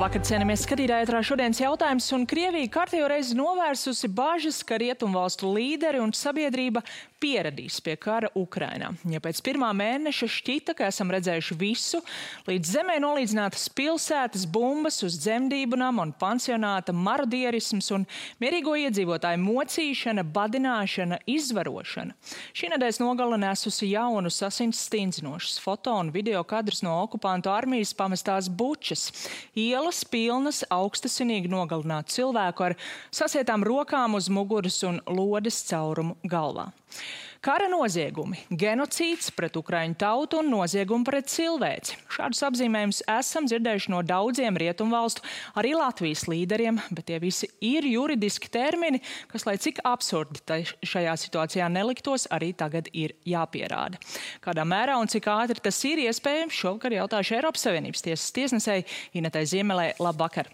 Labvakar, cienījamies skatītāji, ētrā šodienas jautājums, un Krievija kārtējo reizi novērsusi bažas, ka rietumvalstu līderi un sabiedrība pieradīs pie kara Ukrainā. Ja pēc pirmā mēneša šķita, ka esam redzējuši visu, līdz zemē nolīdzinātas pilsētas, bumbas uz dzemdību nama un pansionāta, marodierisms un mierīgo iedzīvotāju mocīšana, badināšana, izvarošana. Šī nedēļas nogale nesusi jaunus asins stingzinošus foto un video kadrus no okupantu armijas pamestās Bučas. Ielas pilnas augstasinīgi nogalinātu cilvēku ar sasietām rokām uz muguras un lodes caurumu galvā. Kara noziegumi, genocīds pret ukraiņu tautu un noziegumi pret cilvēci. Šādus apzīmējumus esam dzirdējuši no daudziem rietumvalstu, arī Latvijas līderiem, bet tie visi ir juridiski termini, kas, lai cik absurdi šajā situācijā neliktos, arī tagad ir jāpierāda. Kādā mērā un cik ātri tas ir iespējams, šovakar jautāšu Eiropas Savienības tiesas tiesnesei Inetai Ziemelei. Labvakar!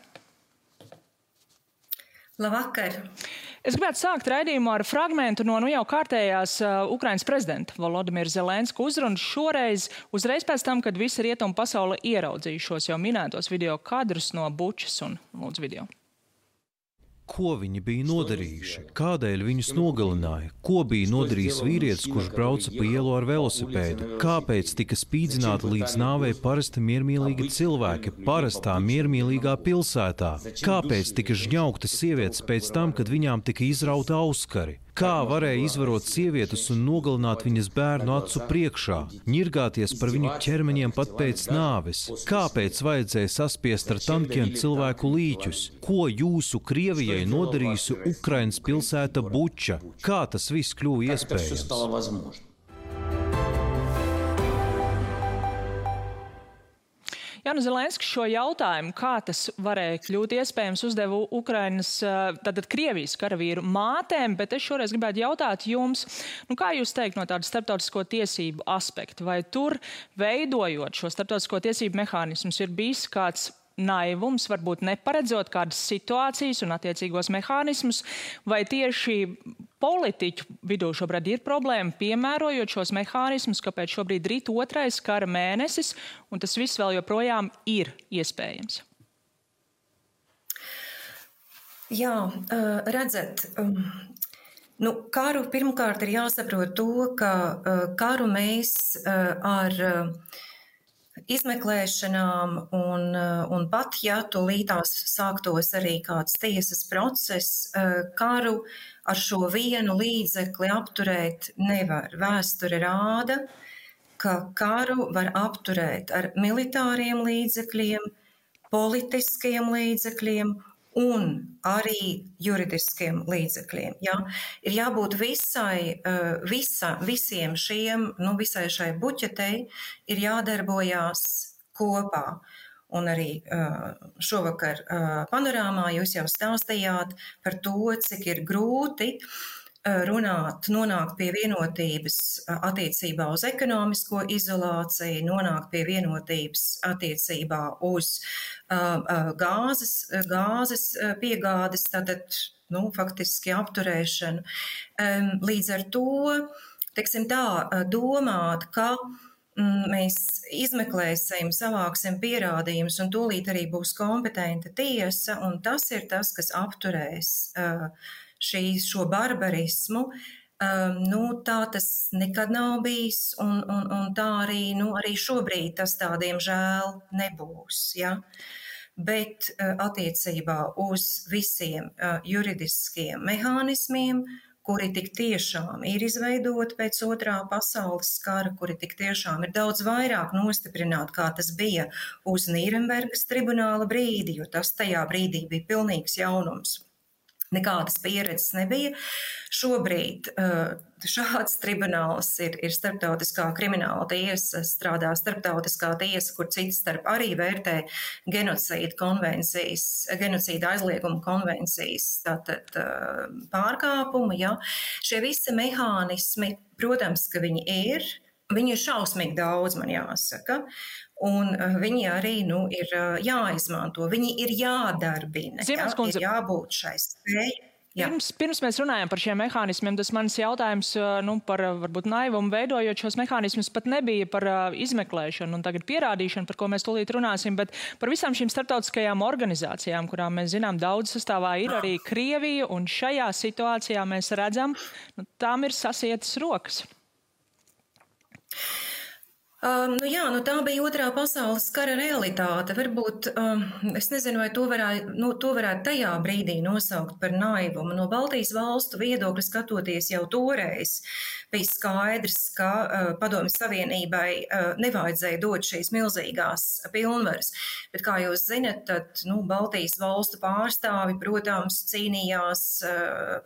Labvakar! Es gribētu sākt raidījumu ar fragmentu no jau kārtējās Ukrainas prezidenta Volodimira Zelenska uzrunas šoreiz, uzreiz pēc tam, kad visa rietumu pasaule ieraudzījušos jau minētos video kadrus no Bučas un lūdzu video. Ko viņi bija nodarījuši? Kādēļ viņus nogalināja? Ko bija nodarījis vīrietis, kurš brauca pa ielu ar velosipēdu? Kāpēc tika spīdzināti līdz nāvei parasti miermīlīgi cilvēki parastā miermīlīgā pilsētā? Kāpēc tika žņaugtas sievietes pēc tam, kad viņām tika izrauta auskari? Kā varēja izvarot sievietes un nogalināt viņas bērnu acu priekšā, ņirgāties par viņu ķermeņiem pat pēc nāves? Kāpēc vajadzēja saspiest ar tankiem cilvēku līķus? Ko jūsu Krievijai nodarījusi Ukrainas pilsēta Buča? Kā tas viss kļuva iespējams? Jānis Zelenskis šo jautājumu, kā tas varēja kļūt iespējams, uzdeva Ukrainas, tātad Krievijas karavīru mātēm, bet es šoreiz gribētu jautāt jums, kā jūs teikt no tāda starptautisko tiesību aspekta, vai tur veidojot šo starptautisko tiesību mehānismus ir bijis kāds naivums, varbūt neparedzot kādas situācijas un attiecīgos mehānismus, vai tieši politiķu vidū šobrīd ir problēma piemērojot šos mehānismus, kāpēc šobrīd rīt otrais kara mēnesis, un tas viss vēl joprojām ir iespējams? Jā, redzat, karu pirmkārt ir jāsaprot to, ka karu mēs ar izmeklēšanām un pat, ja tūlītās sāktos arī kāds tiesas process, karu ar šo vienu līdzekli apturēt nevar. Vēsture rāda, ka karu var apturēt ar militāriem līdzekļiem, politiskiem līdzekļiem un arī juridiskiem līdzekļiem. Ja? Ir jābūt visiem šiem, visai šai buķetei ir jādarbojās kopā. Un arī šovakar panorāmā jūs jau stāstījāt par to, cik ir grūti nonākt pie vienotības attiecībā uz ekonomisko izolāciju, nonākt pie vienotības attiecībā uz gāzes piegādes, tātad, faktiski apturēšanu. Līdz ar to, teiksim tā, domāt, ka mēs izmeklēsim, savāksim pierādījumus un tūlīt arī būs kompetenta tiesa, un tas ir tas, kas apturēs šo barbarismu, tā tas nekad nav bijis, un tā arī šobrīd tas tā diemžēl nebūs. Ja? Bet attiecībā uz visiem juridiskiem mehānismiem, kuri tik tiešām ir izveidoti pēc otrā pasaules kara, kuri tik tiešām ir daudz vairāk nostiprināti, kā tas bija uz Nīrenbergas tribunāla brīdi, jo tas tajā brīdī bija pilnīgs jaunums. Nekādas pieredzes nebija. Šobrīd šāds tribunāls ir starptautiskā krimināla tiesa, strādā starptautiskā tiesa, kur cits starp arī vērtē genocīda aizlieguma konvencijas pārkāpumu. Ja. Šie visi mehānismi, protams, ka viņi ir šausmīgi daudz, man jāsaka. Un viņi arī ir jāizmanto, viņi ir jādarbina, ir jābūt šai spēj. Pirms mēs runājam par šiem mehānismiem, tas mans jautājums par varbūt naivumu veidojot šos mehānismus pat nebija par izmeklēšanu un tagad pierādīšanu, par ko mēs tūlīt runāsim, bet par visām šīm starptautiskajām organizācijām, kurām mēs zinām daudz sastāvā ir arī Krievija, un šajā situācijā mēs redzam, tām ir sasietas rokas. Tā bija otrā pasaules kara realitāte. Varbūt, es nezinu, vai to varētu tajā brīdī nosaukt par naivumu. No Baltijas valstu viedokļa skatoties jau toreiz bija skaidrs, ka Padomju Savienībai nevajadzēja dot šīs milzīgās pilnvaras. Bet, kā jūs zinat, tad Baltijas valstu pārstāvi, protams, cīnījās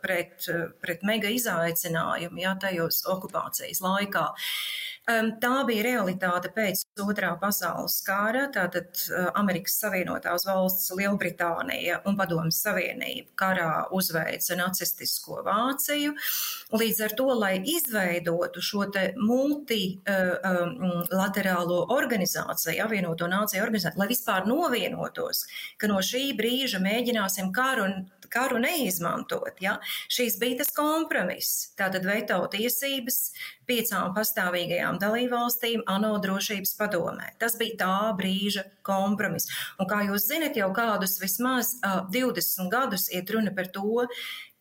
pret mega izaicinājumu, tajos okupācijas laikā. Tā bija realitāte pēc otrā pasaules kara, tātad Amerikas Savienotās valsts, Lielbritānija un Padomju Savienība karā uzveica nacistisko Vāciju. Līdz ar to, lai izveidotu šo te multilaterālo organizāciju, apvienoto nāciju organizāciju, lai vispār novienotos, ka no šī brīža mēģināsim karu neizmantot. Ja? Šīs bija tas kompromiss. Tātad veto tiesības 5 pastāvīgajām dalībvalstīm ANO drošības padomē. Tas bija tā brīža kompromiss. Un kā jūs zinat, jau kādus vismaz 20 gadus iet runa par to,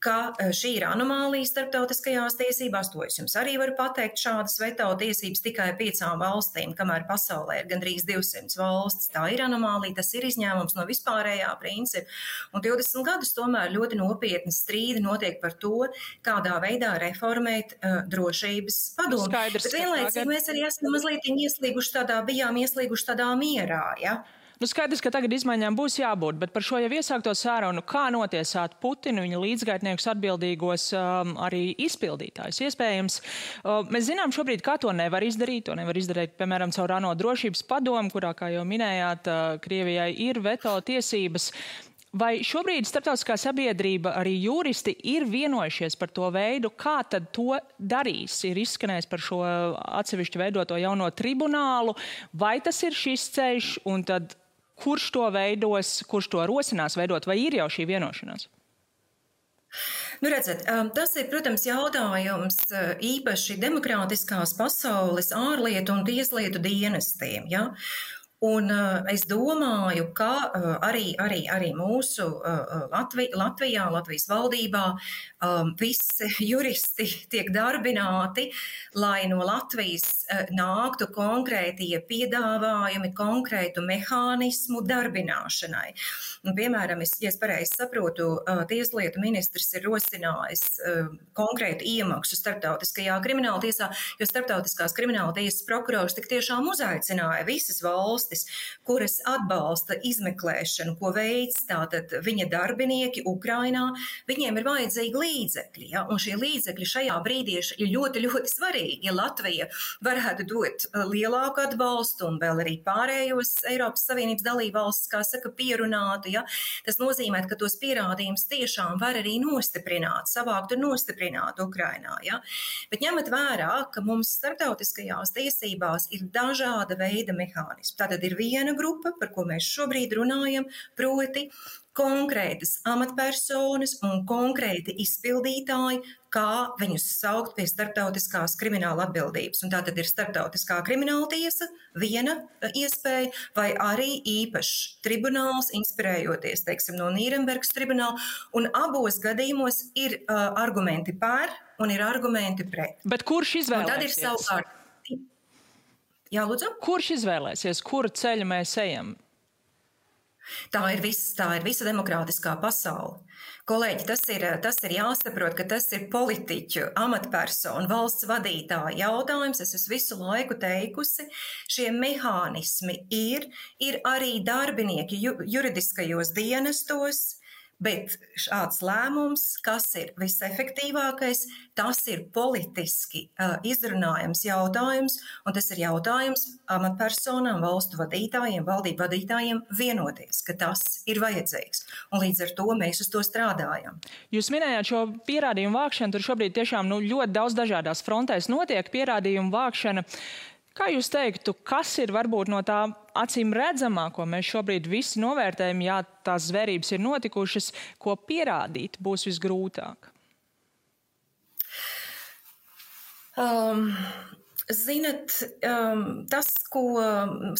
ka šī ir anomālija starptautiskajās tiesībās, to es jums arī varu pateikt, šādas veto tiesības tikai 5 valstīm, kamēr pasaulē ir gandrīz 200 valstis. Tā ir anomālija, tas ir izņēmums no vispārējā principa. Un 20 gadus tomēr ļoti nopietni strīdi notiek par to, kādā veidā reformēt drošības padomu. Bet vienlaicīgi mēs arī esam mazliet bijām ieslīguši tādā mierā, ja? Skaidrs, ka tagad izmaiņām būs jābūt, bet par šo jau iesākto sarunu, kā notiesāt Putinu, viņa līdzgaitniekus atbildīgos arī izpildītājus. Iespējams, mēs zinām šobrīd, kā to nevar izdarīt. To nevar izdarīt, piemēram, caur ANO drošības padomu, kurā, kā jau minējāt, Krievijai ir veto tiesības. Vai šobrīd starptautiskā sabiedrība, arī juristi, ir vienojušies par to veidu, kā tad to darīs? Ir izskanējis par šo atsevišķi veidoto jauno tribunālu, vai tas ir šis ceļš, un tad kurš to veidos, kurš to rosinās veidot, vai ir jau šī vienošanās? Redzat, tas ir, protams, jautājums īpaši demokrātiskās pasaules ārlietu un tieslietu dienestiem, ja? Un es domāju, ka arī mūsu Latvijā, Latvijas valdībā visi juristi tiek darbināti, lai no Latvijas nāktu konkrētie piedāvājumi, konkrētu mehānismu darbināšanai. Un, piemēram, ja es pareizi saprotu, tieslietu ministrs ir rosinājis konkrētu iemaksu starptautiskajā krimināla tiesā, jo starptautiskās krimināla tiesas prokurors tik tiešām uzaicināja visas valstis, kuras atbalsta izmeklēšanu, ko veids tātad viņa darbinieki Ukrainā, viņiem ir vajadzīgi līdzekļi. Ja? Un šie līdzekļi šajā brīdī ir ļoti, ļoti svarīgi. Ja Latvija varētu dot lielāku atbalstu un vēl arī pārējos Eiropas Savienības dalībvalstis, kā saka, pierunātu, ja? Tas nozīmē, ka tos pierādījumus tiešām var arī nostiprināt, savākt un nostiprināt Ukrainā. Ja? Bet ņemot vērā, ka mums starptautiskajās tiesībās ir dažāda veida mehānismi. Tātad ir viena grupa, par ko mēs šobrīd runājam, proti konkrētas amatpersonas un konkrēti izpildītāji, kā viņus saukt pie starptautiskās krimināla atbildības. Un tā tad ir starptautiskā krimināla tiesa, viena iespēja, vai arī īpašs tribunāls, inspirējoties, teiksim, no Nīrenbergas tribunāla. Un abos gadījumos ir argumenti par un ir argumenti pret. Bet kurš izvēlēsies? Un tad ir savukārt. Jā, lūdzu? Kurš izvēlēsies, kuru ceļu mēs ejam? Tā ir visa demokrātiskā pasaule. Kolēģi, tas ir jāsaprot, ka tas ir politiķu, amatpersonu, valsts vadītāju jautājums. Es esmu visu laiku teikusi, šie mehānismi ir arī darbinieki juridiskajos dienestos, bet šāds lēmums, kas ir visefektīvākais, tas ir politiski izrunājams jautājums, un tas ir jautājums amatpersonām, valstu vadītājiem, valdību vadītājiem vienoties, ka tas ir vajadzīgs. Un līdz ar to mēs uz to strādājam. Jūs minējāt šo pierādījumu vākšanu, tur šobrīd tiešām ļoti daudz dažādās frontēs notiek pierādījumu vākšana. Kā jūs teiktu, kas ir varbūt no tā acīm redzamā, ko mēs šobrīd visi novērtējam, ja tās zvērības ir notikušas, ko pierādīt būs visgrūtāk? Zinat, tas,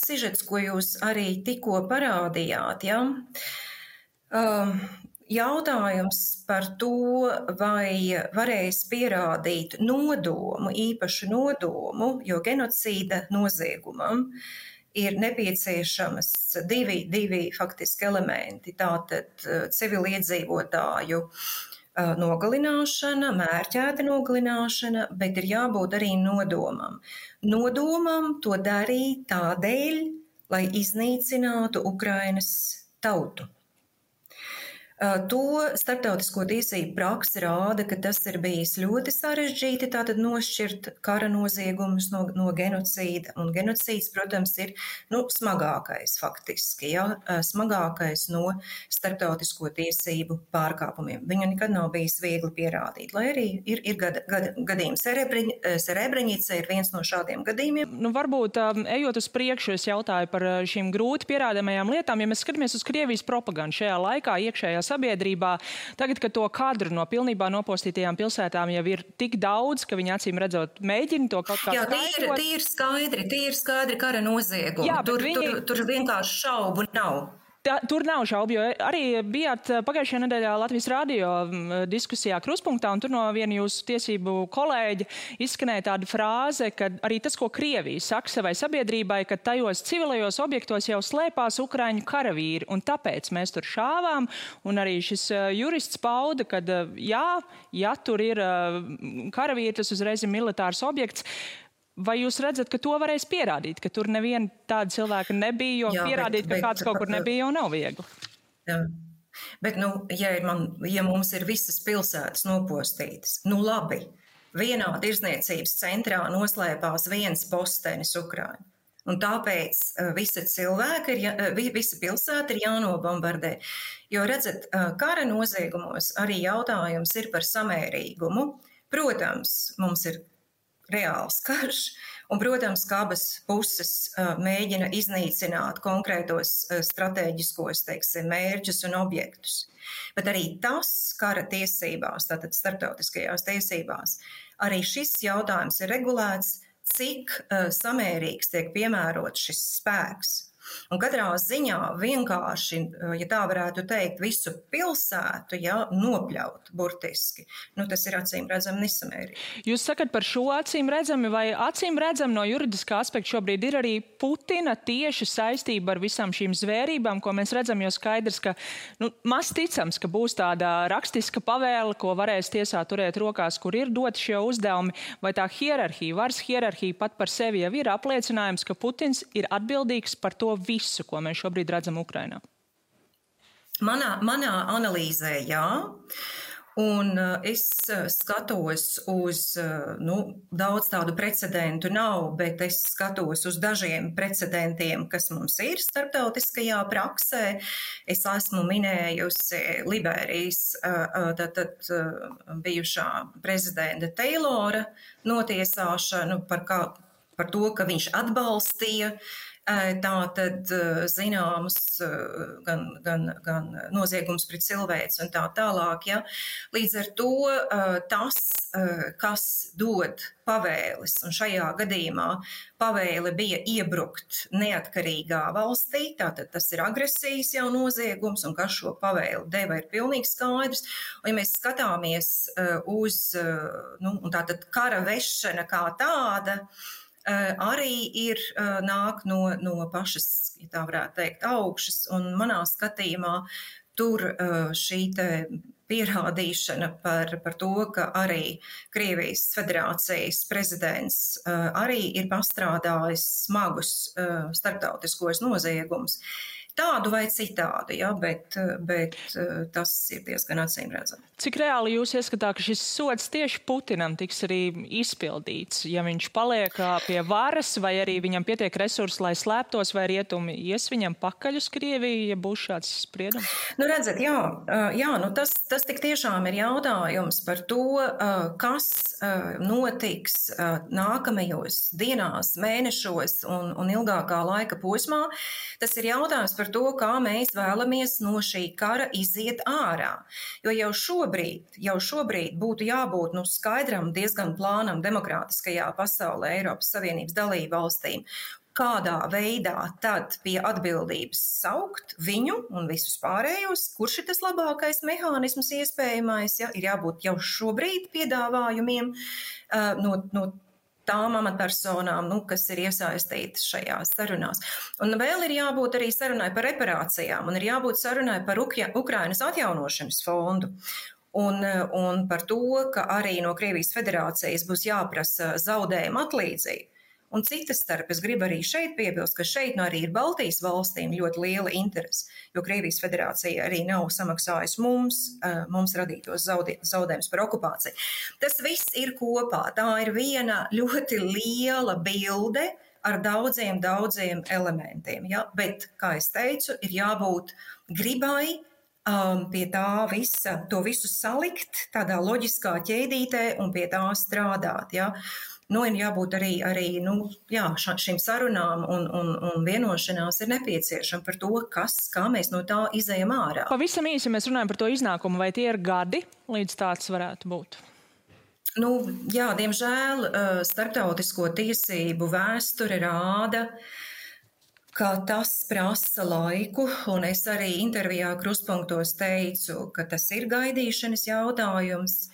sižets, ko jūs arī tikko parādījāt, ja? Jautājums par to, vai varēs pierādīt nodomu, īpašu nodomu, jo genocīda noziegumam ir nepieciešamas divi faktiski elementi, tātad civiliedzīvotāju nogalināšana, mērķēta nogalināšana, bet ir jābūt arī nodomam. Nodomam to darīt tādēļ, lai iznīcinātu Ukrainas tautu. To starptautisko tiesību praksa rāda, ka tas ir bijis ļoti sarežģīti, tātad nošķirt kara noziegumus no genocīda. Un genocīds, protams, ir smagākais faktiski, ja, smagākais no starptautisko tiesību pārkāpumiem. Viņu nekad nav bijis viegli pierādīt, lai arī ir gadījumi. Serebreņica ir viens no šādiem gadījumiem. Varbūt, ejot uz priekšu, es jautāju par šīm grūti pierādāmajām lietām. Ja mēs skatāmies uz Krievijas propagandu šajā laikā, iekšējā sabiedrībā, tagad, kad to kadru no pilnībā nopostītajām pilsētām jau ir tik daudz, ka viņi acīm redzot mēģina to kaut kā skaidrot. Tie ir skaidri kara noziegumi. Jā, tur vienkārši šaubu nav. Tur nav šaubu, jo arī bijāt pagājušajā nedēļā Latvijas radio diskusijā Kruspunktā, un tur no viena jūsu tiesību kolēģa izskanēja tāda frāze, ka arī tas, ko Krievija saka savai sabiedrībai, ka tajos civilajos objektos jau slēpās ukraiņu karavīri, un tāpēc mēs tur šāvām, un arī šis jurists pauda, ka ja tur ir karavīri, tas uzreiz ir militārs objekts. Vai jūs redzat, ka to varēs pierādīt, ka tur neviena tāda cilvēka nebija, jo pierādīt, ka kāds kaut kur nebija, jau nav viegli? Jā. Bet, ja mums ir visas pilsētas nopostītas, labi, vienā tirdzniecības centrā noslēpās viens postenis Ukraiņu. Un tāpēc visa pilsēta ir jānobombardē. Jo, redzat, kara noziegumos arī jautājums ir par samērīgumu. Protams, mums ir reāls karš, un, protams, ka abas puses mēģina iznīcināt konkrētos stratēģiskos, mērķus un objektus. Bet arī tas kara tiesībās, tātad starptautiskajās tiesībās, arī šis jautājums ir regulēts, cik samērīgs tiek piemērots šis spēks. Un katrā ziņā vienkārši, ja tā varētu teikt, visu pilsētu nopļaut burtiski, tas ir acīm redzami nesamērīgi. Jūs sakat par šo acīm redzami, vai acīm redzami no juridiskā aspekta šobrīd ir arī Putina tieši saistība ar visām šīm zvērībām, ko mēs redzam, jo skaidrs, ka maz ticams, ka būs tāda rakstiska pavēle, ko varēs tiesā turēt rokās, kur ir doti šie uzdevumi, vai tā hierarhija, varas hierarhija pat par sevi jau ir apliecinājums, ka Putins ir atbildīgs par to visu, ko mēs šobrīd redzam Ukrainā? Manā analīzē, jā. Un es skatos uz, daudz tādu precedentu nav, bet es skatos uz dažiem precedentiem, kas mums ir starptautiskajā praksē. Es esmu minējusi Liberijas bijušā prezidenta Taylora notiesāšanu par to, ka viņš atbalstīja tātad zināmas gan noziegums pret cilvēci un tā tālāk. Ja? Līdz ar to tas, kas dod pavēles, un šajā gadījumā pavēle bija iebrukt neatkarīgā valstī, tātad tas ir agresijas jau noziegums, un kas šo pavēli deva ir pilnīgi skaidrs. Un ja mēs skatāmies uz tātad kara vešana kā tāda, arī nāk no pašas, ja tā varētu teikt, augšas, un manā skatījumā tur šī te pierādīšana par to, ka arī Krievijas federācijas prezidents arī ir pastrādājis smagus starptautiskos noziegumus. tādu vai citādu, ja, bet tas ir diezgan acīmredzami. Cik reāli jūs ieskatāt, ka šis sods tieši Putinam tiks arī izpildīts, ja viņš paliek pie varas, vai arī viņam pietiek resursi, lai slēptos, vai rietumi ies viņam pakaļ uz Krieviju, ja būs šāds spriedums? Nu, redzat, jā, tas tik tiešām ir jautājums par to, kas notiks nākamajos dienās, mēnešos un ilgākā laika posmā. Tas ir jautājums par to, kā mēs vēlamies no šī kara iziet ārā. Jo jau šobrīd būtu jābūt skaidram, diezgan plānam demokrātiskajā pasaulē Eiropas Savienības dalību valstīm, kādā veidā tad pie atbildības saukt viņu un visus pārējos, kurš ir tas labākais mehānisms iespējamais, ja, ir jābūt jau šobrīd piedāvājumiem no tām amatpersonām, kas ir iesaistītas šajās sarunās. Un vēl ir jābūt arī sarunai par reparācijām, un ir jābūt sarunai par Ukrainas atjaunošanas fondu. Un par to, ka arī no Krievijas federācijas būs jāprasa zaudējuma atlīdzība. Un citas starp, es gribu arī šeit piebilst, ka šeit arī ir Baltijas valstīm ļoti liela interese, jo Krievijas federācija arī nav samaksājusi mums radītos zaudējumus par okupāciju. Tas viss ir kopā. Tā ir viena ļoti liela bilde ar daudziem elementiem. Ja? Bet, kā es teicu, ir jābūt gribai pie tā visa, to visu salikt tādā loģiskā ķēdītē un pie tā strādāt. Ja? Ir jābūt arī šīm sarunām un vienošanās ir nepieciešama par to, kā mēs no tā izejam ārā. Pavisam īsi mēs runājam par to iznākumu, vai tie ir gadi, līdz tāds varētu būt? Diemžēl starptautisko tiesību vēsture rāda, ka tas prasa laiku, un es arī intervijā Kruspunktos teicu, ka tas ir gaidīšanas jautājums.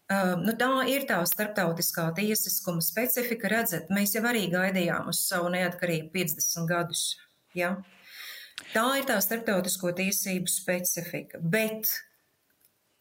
Tā ir tā starptautiskā tiesiskuma specifika. Redzat, mēs jau arī gaidījām uz savu neatkarību 50 gadus. Ja? Tā ir tā starptautisko tiesību specifika. Bet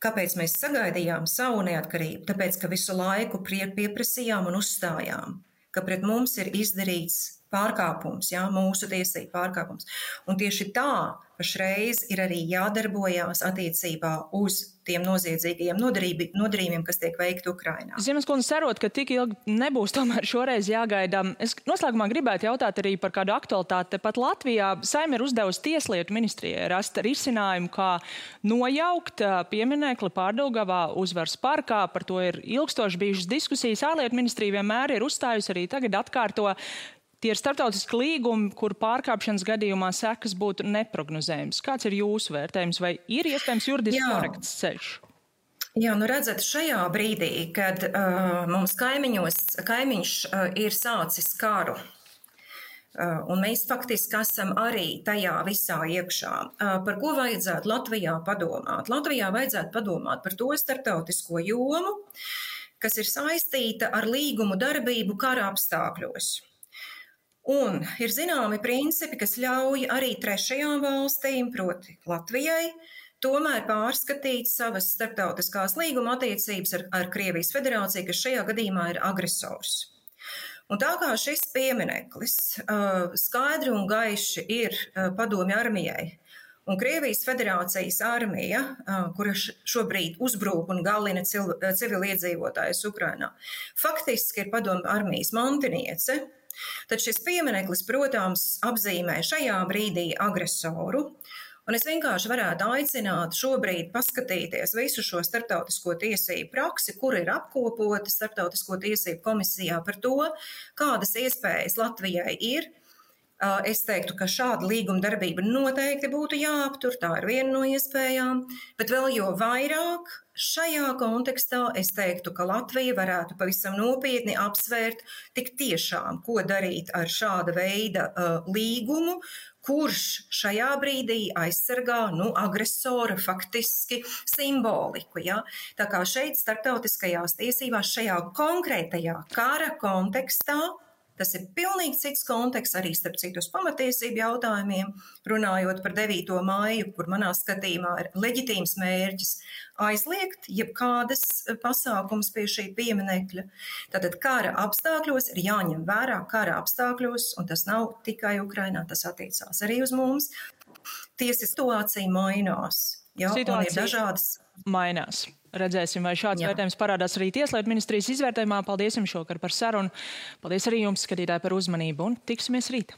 kāpēc mēs sagaidījām savu neatkarību? Tāpēc, ka visu laiku pieprasījām un uzstājām, ka pret mums ir izdarīts pārkāpums, mūsu tiesību pārkāpums. Un tieši tā pašreiz ir arī jādarbojās attiecībā uz tiem noziedzīgajiem nodarījumiem, kas tiek veikti Ukrainā. Ziemaskundze, cerot, ka tik ilgi nebūs tomēr šoreiz jāgaida. Es noslēgumā gribētu jautāt arī par kādu aktualitāti. Pat Latvijā Saeima ir uzdevusi Tieslietu ministrijai rast risinājumu, kā nojaukt pieminekli Pārdaugavā Uzvaras parkā. Par to ir ilgstoši bijušas diskusijas. Ārlietu ministrija vienmēr ir uzstājusi, arī tagad atkārto. Tie ir starptautiski līgumi, kur pārkāpšanas gadījumā sekas būtu neprognozējums. Kāds ir jūsu vērtējums, vai ir iespējams juridiski korekts ceļš? Jā, redzat, šajā brīdī, kad mums kaimiņš ir sācis karu, un mēs faktiski esam arī tajā visā iekšā, par ko vajadzētu Latvijā padomāt? Latvijā vajadzētu padomāt par to starptautisko jomu, kas ir saistīta ar līgumu darbību kara apstākļos. Un ir zināmi principi, kas ļauj arī trešajām valstīm, proti Latvijai, tomēr pārskatīt savas starptautiskās līguma attiecības ar Krievijas federāciju, kas šajā gadījumā ir agresors. Un tā kā šis piemineklis skaidri un gaiši ir padomju armijai, un Krievijas federācijas armija, kura šobrīd uzbrūk un galina civiliedzīvotājus Ukrainā, faktiski ir padomju armijas mantiniece. Tad šis piemineklis, protams, apzīmē šajā brīdī agresoru, un es vienkārši varētu aicināt šobrīd paskatīties visu šo starptautisko tiesību praksi, kur ir apkopota starptautisko tiesību komisijā par to, kādas iespējas Latvijai ir. Es teiktu, ka šāda līguma darbība noteikti būtu jāaptur, tā ir viena no iespējām, bet vēl jo vairāk šajā kontekstā es teiktu, ka Latvija varētu pavisam nopietni apsvērt tik tiešām, ko darīt ar šāda veida līgumu, kurš šajā brīdī aizsargā agresora faktiski simboliku. Ja? Tā kā šeit starptautiskajās tiesībās šajā konkrētajā kara kontekstā, tas ir pilnīgi cits konteksts, arī starp citus pamatiesību jautājumiem, runājot par 9. maiju, kur manā skatījumā ir leģitīms mērķis aizliegt jebkādas pasākums pie šī pieminekļa. Tātad kara apstākļos ir jāņem vērā kara apstākļos, un tas nav tikai Ukrainā, tas attiecās arī uz mums. tiesiskā situācija mainās. Ja, un ir dažādas. Mainās. Redzēsim, vai šāds vērtējums parādās arī Tieslietu ministrijas izvērtējumā. Paldies jums šokar par sarunu. Paldies arī jums, skatītāji, par uzmanību un tiksimies rīt.